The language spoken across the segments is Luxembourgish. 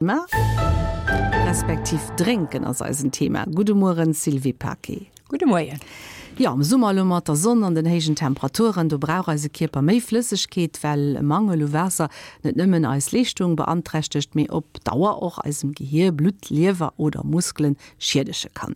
Thema, respektiv drénken ass eisen Thema. Gudde Mueren Sylvie Paquet. Gudde Moien. Jo, am Summer elo mat der Sonn an den héijen Temperaturen, do brauch eise Kierper méi Flëssegkeet, well e Mangel u Waasser net nëmmen eis Leeschtung beanträchtegt, mee op Dauer och eisem Gehier, Blutt, Liewer oder Muskelen schiedege kann.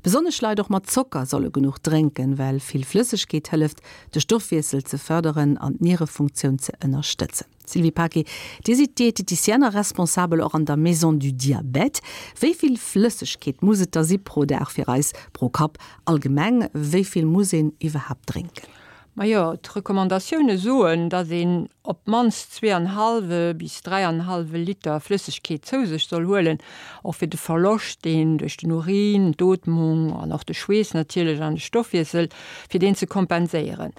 Besonnesch Leit och mat Zocker solle genuch drénken, well vill Flëssegkeet hëlleft, de Stoffwiessel ze fërderen an d'Nierefunktioun ze ënnerstëtzen. Sylvie Paquet, Dir sidd Diététicienne a Responsabel och an der Maison du Diabète. Wéi vill Flëssegkeet muss et da si pro Dag fir eis, pro Kapp allgemeng? Wéi vill muss een iwwerhaapt drénken? Majo, d'Recommandatioune soen, datt een op d'mannst zweeanhallwe bis dräianhallwe Liter Flëssegkeet zou sech soll huelen, och fir de Verloscht, deen duerch den Urin, d'Ootmung an och de Schweess natierlech an de Stoffwiessel, fir deen ze kompenséieren.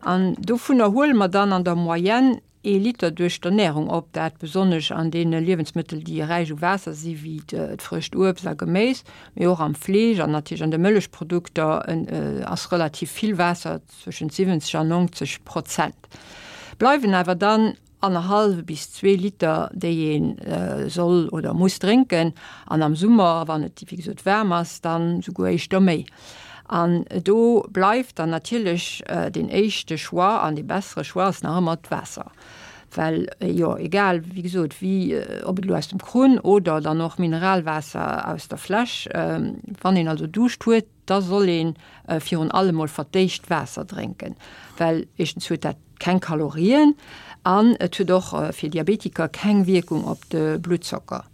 An dovunner huele mer dann an der Moyenne ee Liter duerch d'Ernärung op, dat besonnesch an deene Liewensmëttel, déi räich u Waasser si wéi d'frëscht Uebst a Geméis, mee och am Fleesch an natierlech an de Mëllechprodukter ass relativ vill Waasser, zwëschent 70 an 90 Prozent. Bleiwen awer dann annerhallwe bis zwee Liter, déi ee soll oder muss drénken, an am Summer, wann et wéi gesot waarm ass, dann souguer éischter méi. An do bleift dann natierlech deen éischte Choix an dee bessere Choix ass nach ëmmer d'Waasser, well jo egal wéi gesot wéi, ob et elo aus dem Krunn oder dann och Mineralwaasser aus der Fläsch, wann een also Duuscht huet, da soll ee virun allem mol fir d'éischt Waasser drénken, well éischtens huet dat keng Kalorien an et huet och fir Diabetiker keng Wierkung op de Bluttzocker.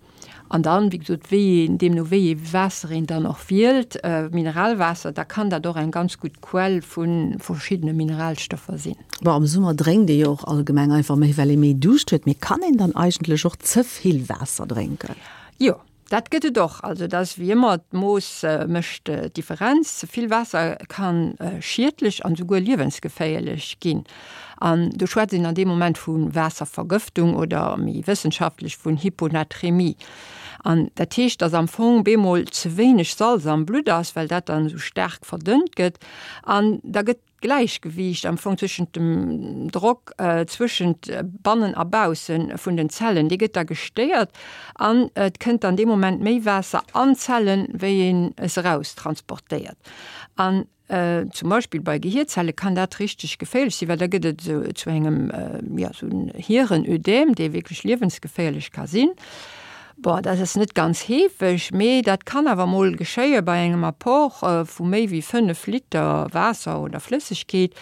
An dann, wéi gesot, wéi een, deemno wéi ee Waasser een dann och wielt, Mineralwaasser, da kann dat och eng ganz gutt Quell vu verschiddene Mineralstoffer sinn. Bon, am Summer drénkt ee jo och allgemeng einfach méi, well ee méi Duuscht huet. Mee kann een dann eigentlech och ze vill Waasser drénken? Jo, Dat gëtt et och. Also et ass wéi ëmmer, d'Mooss mécht d'Differenz. Ze vill Waasser ka schiedlech an esouguer liewensgeféierlech ginn. An do schwätzt een an deem Moment vu Waasservergëftung oder méi wëssenschaftlech vun Hyponatremie. An dat heescht, datt am Fong bemol ze wéineg Salz am Blutt ass, well dat dann esou staark verdënnt gëtt. An da gëtt D'Gläichgewiicht am Fong zwëschent dem Drock zwëschent bannen a bausse vun den Zellen, dee gëtt da gestéiert an et kënnt dann dee Moment méi Waasser an d'Zellen, wéi een es eraus transportéiert. An zum Beispill bei Gehierzelle kann dat richteg geféierlech sinn, well da gëtt et esou zu engem, jo, esou en Hierenödem, dee wierklech liewensgeféierlech ka sinn. Bon, dat ass net ganz heefeg, mee dat kann awer mol geschéie bei engem Apport vu méi wéi 5 Liter Waasser oder Flëssegkeet.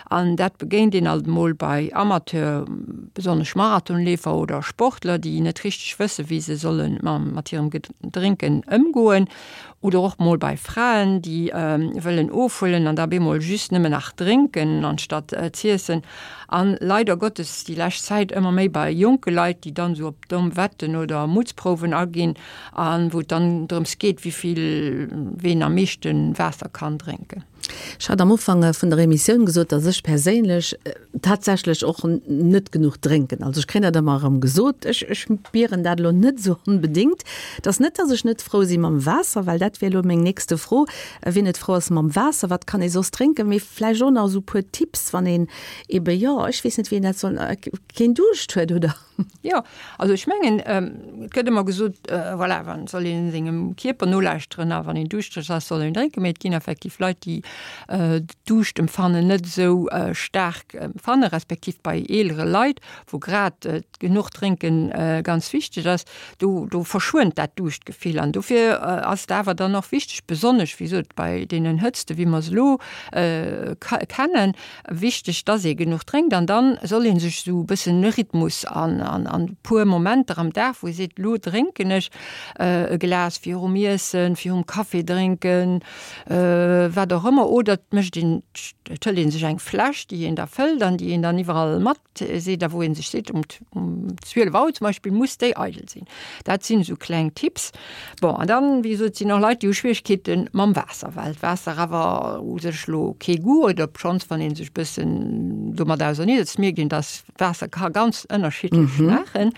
An dat begéint een alt mol bei Amateur, besonnesch Marathonleefer oder Sportler, déi net richteg wësse wéi se solle mat hirem Drénken ëmgoen. Oder och mol bei Fraen, déi wëllen ofhuelen an da bemol just nëmmen nach drénken anstatt z'iessen. An leider Gottes déi lescht Zäit ëmmer méi bei jonke Leit, déi dann esou op domm Wetten oder Mutzprouwen aginn a wou et dann drëms geet, wéivill ween am meeschte Waasser kann drénken. Ech hat am Ufank vun der Emissioun gesot, dass ech perséinlech tatsächlech och net genuch drénken. Also ech kréien dat ëmmer erëm gesot. Ech ech spieren dat elo net esou onbedéngt. Et ass net, dass ech net frou si mam Waasser, well dat wier elo meng nächste Fro, Wien net frou ass mam Waasser, wat kann ee soss drénken? Mee vläicht och nach esou e puer Tipps, wann een ebe, jo, ech weess net, wéi een dat soll, keen Duuscht huet, oder? Jo, also ech mengen, et gëtt ëmmer gesot, voilà, wann soll een sengem Kierper nolauschteren a wann een duuschtereg ass, soll een drénken. Mee et ginn effektiv Leit, déi d'Duuschtempfannen net esou staark empfannen, respektiv bei eelere Leit, wou grad genuch drénken ganz wichteg ass, do do verschwënnt dat Duuschtgefill. An dofir ass et awer dann och wichteg, besonnesch wéi gesot bei deenen Hëtzte wéi mer se elo kennen, Wichteg, dass ee genuch drénkt an dann soll ee sech esou e bëssen e Rhythmus an an e puer Momenter am Dag, wou ee seet, elo drénken ech e Glas virum Iessen, virum Café drénken, wat och ëmmer. Oder et mécht een, et hëlt ee sech eng Fläsch, déi een da fëllt an déi een dann iwwerall mat seet a wou ee sech seet, um um 12 Auer zum Beispill muss déi eidel sinn. Dat sinn esou kleng Tipps. Bon, an dann, wéi gesot, sinn och Leit, déi hu Schwieregkeete mam Waasser, well d'Waasser awer u sech elo kee Goût huet, obschonns, wann ee sech e bëssen domat auserneesetzt, mierkt een, dass Waasser ka ganz ënnerschiddlech schmaachen.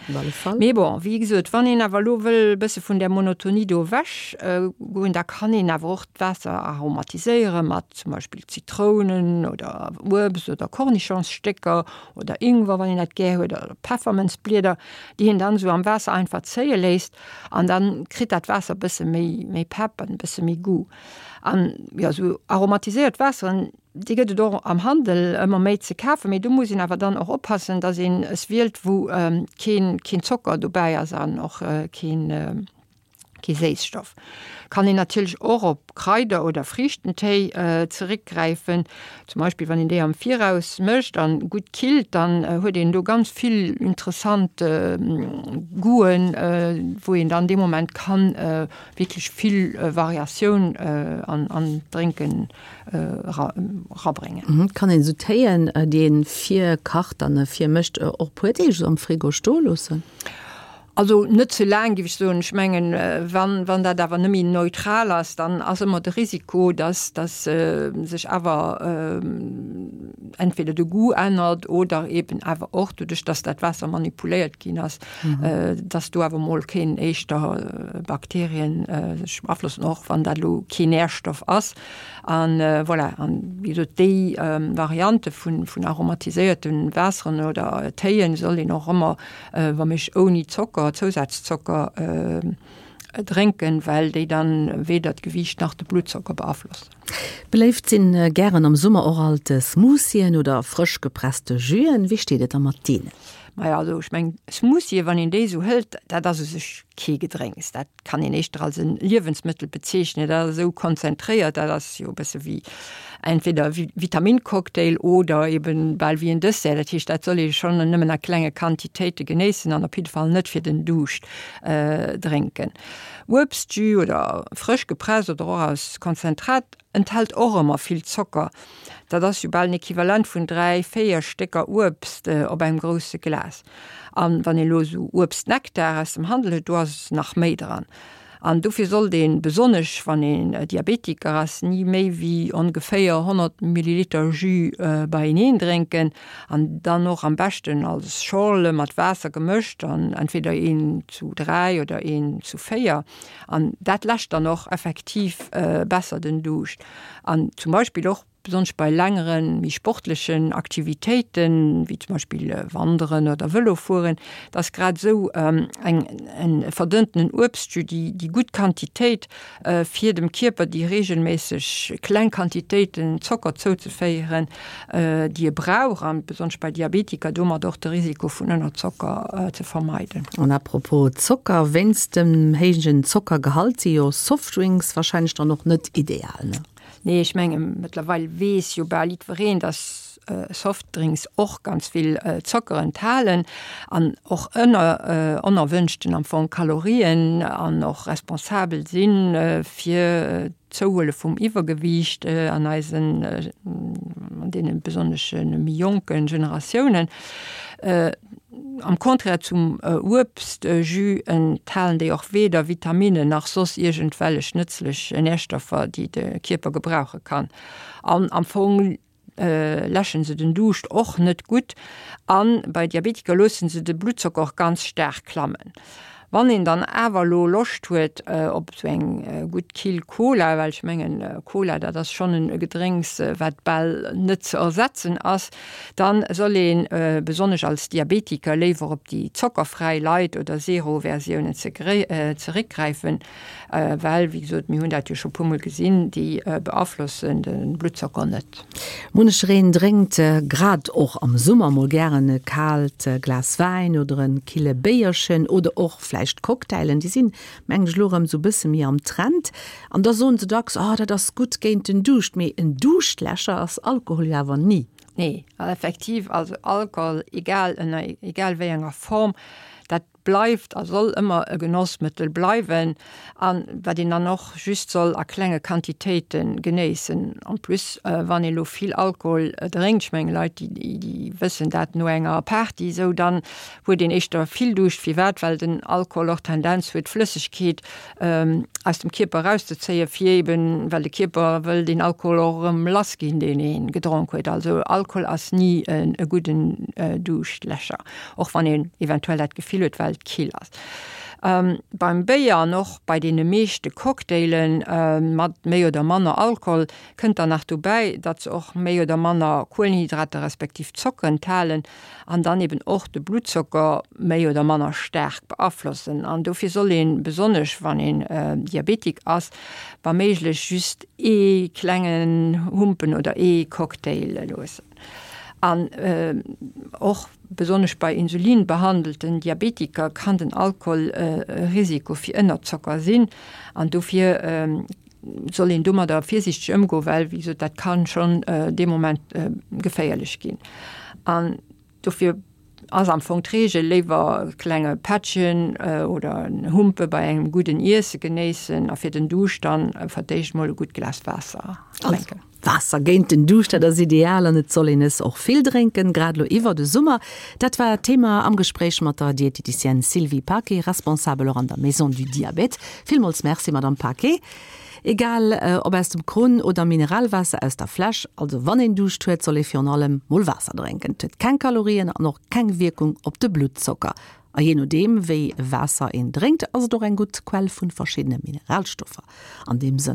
Mee bon, wéi gesot, wann een awer elo wëll e bësse vun där Monotonie do ewech goen, da kann een awer och d'Waasser aromatiséieren. mat zum Beispill Zitrounen oder Uebst oder Kornischongsstécker oder Ingwer, wann een dat gär huet, oder Peffermënzblieder, déi een dann esou am Waasser einfach zéie léisst an dann kritt dat Waasser e bësse méi, méi Pepp an e bësse méi Goût. An jo, esou aromatiséiert Waasseren, déi gëtt et och am Handel ëmmer méi ze kafen, mee do muss een awer dann och oppassen, dass een es wielt, wou keen, keen Zocker dobäi ass an och keen, Kee Séisstoff. Kann een natierlech och op Kraider oder Friichtentéi zeréckgräifen. Zum Beispill wann een déi am Viraus mécht an gutt killt, dann huet een do ganz vill interessant Goûten, wou een dann dee Moment kann wierklech vill Variatioun an d'Drénken erabréngen. Kann een esou Téien, déi een virkacht an virmécht, och puer Deeg esou am Frigo stoe loossen? Also net ze laang, géif ech soen. Ech mengen, wann, wann dat awer net méi neutral ass, dann ass ëmmer de Risiko, dass, dass sech awer entweder de Goût ännert oder eben awer och doduerch, dass dat Waasser manipuléiert ginn ass, dass do awer emol kéinen éischter Bakterien sech beaflossen, och wann dat elo keen Nährstoff ass. An voilà, an wéi gesot, déi Variante vun, vun aromatiséierte Waasseren oder Téien soll een och ëmmer wa méiglech ouni Zocker, Zousazzocker drénken, well déi dann weder d'Gewiicht nach de Bluttzocker beaflossen. Beléift sinn gären am Summer och alt Smoothien oder frësch gepresste Jüen. Wéi steet et da mat deenen? Majo, also ech mengen Smoothien, wann een déi esou hëlt, dat ass u sech kee Gedrénks. Dat kann een éischter als e Liewensmëttel bezeechnen, dat ass esou konzentréiert, dat ass jo e bësse wéi entweder e Vitamincocktail oder eben bal wéi en Dessert. Dat heescht, dat soll ee schonn nëmmen a klenge Quantitéite genéissen an op jidde Fall net fir den Duuscht drénken. Uebstjus oder frësch gepresst oder och aus Konzentrat Enthält och ëmmer vill Zocker, dat ass jo bal en Equivalent vun 3, 4 Stécker Uebst op engem grousse Glas. An wann een elo esou Uebstnektar aus dem Handel huet, do ass nach méi dran. An dofir sollt een, besonnesch wann een Diabetiker ass, ni méi wéi ongeféier 100 Milliliter Jus beieneen drénken an dann och am beschten als Schorle mat Waasser gemëscht an entweder een zu 3 oder een zu 4. An dat läscht dann och effektiv besser den Duuscht. An zum Beispill och besonnesch bei längeren, méi sportlechen Aktivitéiten, wéi zum Beispill Wanderen oder Vëlo fueren, da ass grad esou eng e verdënnten Uebstjus déi déi gutt Quantitéit, fir dem Kierper déi reegelméisseg kleng Quantitéiten Zocker zouzeféieren, déi e brauch, an besonnesch bei Diabetiker domat och de Risiko vun Ënnerzocker ze vermeiden. An à propos Zocker, wéinst dem héijen Zockergehalt si jo Softdrinks wahrscheinlech dann och net ideal, ne? Nee, ech menge mëttlerweil weess jo bal jiddwereen, dass Softdrinks och ganz vill Zocker enthalen an och ënner onerwënschten am Fong Kalorien an och responsabel si fir d'Zouhuele vum Iwwergewiicht an eisen, an deene besonnesch méi jonke Generatiounen. Am Contraire zum Uebstjus enthalen déi och weder Vitaminnen nach soss iergendwellech nëtzlech Närstoffer, déi de Kierper gebrauche kann. An am Fong läschen se den Duuscht och net gutt an bei Diabetiker loossen se de Bluttzocker och ganz staark klammen. Wann een dann awer elo Loscht huet op esou eng gutt kill Cola, well ech mengen Cola dat ass schonn e Gedrénks wat bal net ze ersetzen ass, dann soll ee besonnesch als Diabetiker léiwer op déi zockerfräi Light oder Zero Versiounen zeréckgräifen. Well, wéi gesot, mir hunn dat jo scho puermol gesinn, déi beaflossen de Bluttzocker net. Munchereen drénkt grad och am Summer mol gären e kaalt Glas Wäin oder e kille Béierchen oder och vläicht Cocktailen. Déi sinn, mengen ech, elo erëm esou e bësse méi am Trend. An da soen se dacks, Oh, dat ass gutt géint den Duuscht. Mee en Duuschtläscher ass Alkohol jo awer ni. Nee, effektiv, also Alkohol, egal ënner egal wéi enger Form, dat bleift a soll ëmmer e Genossmëttel bleiwen an wat een dann och just soll a klenge Quantitéite genéissen. En plus wann ee lo vill Alkohol drénkt, ech mengen Leit déi déi wëssen dat no enger Party esou, dann huet een éischter vill Duuscht. Firwat? Well den Alkohol och d'Tendenz huet Flëssegkeet aus dem Kierper erauszezéien, fir eben, well de Kierper wëll deen Alkohol och erëm lass ginn deen ee gedronk huet. Also Alkohol ass ni e gudden Duuschtläscher. Och wann een eventuell dat Gefill huet, well et kill ass. Beim Béier an och bei deene meeschte Cocktaile mat méi oder manner Alkohol kënnt dann nach dobäi, datt se och méi oder manner Kuelenhydrater respektiv Zocker enthalen an dann eben och de Bluttzocker méi oder manner staark beaflossen. An dofir soll een, besonnesch wann een Diabetik ass, wa méiglech just ee klengen Humpen oder ee Cocktail loossen. An och besonnesch bei insulinbehandelten Diabetiker kann den Alkohol e Risiko fir Ënnerzocker sinn an dofir soll een domadder virsiichteg ëmgoen, well wéi gesot, dat ka schonn dee Moment geféierlech ginn. An dofir ass am Fong d'Reegel, léiwer e klenge Pättchen oder en Humpe bei engem gudden Iesse genéissen a fir den Duuscht dann fir d'éischt mol e gutt Glas Waasser drénken. Waasser géint den Duuscht, dat ass ideal an et soll een es och vill drénken, grad elo iwwer de Summer. Dat war d'Thema am Gespréich mat der Dieteticienne Sylvie Paquet, Responsabel och an der Maison du Diabète. Villmools Merci, Madame Paquet. Egal ob aus dem Krunn oder Mineralwaasser aus der Fläsch, also wann een Duuscht huet, soll ee virun allem mol Waasser drénken. Et huet keng Kalorien an och keng Wierkung op de Bluttzocker. A jee nodeem wéi Waasser een drénkt, ass et och eng gutt Quell vu verschiddene Mineralstoffer. An deem Sënn.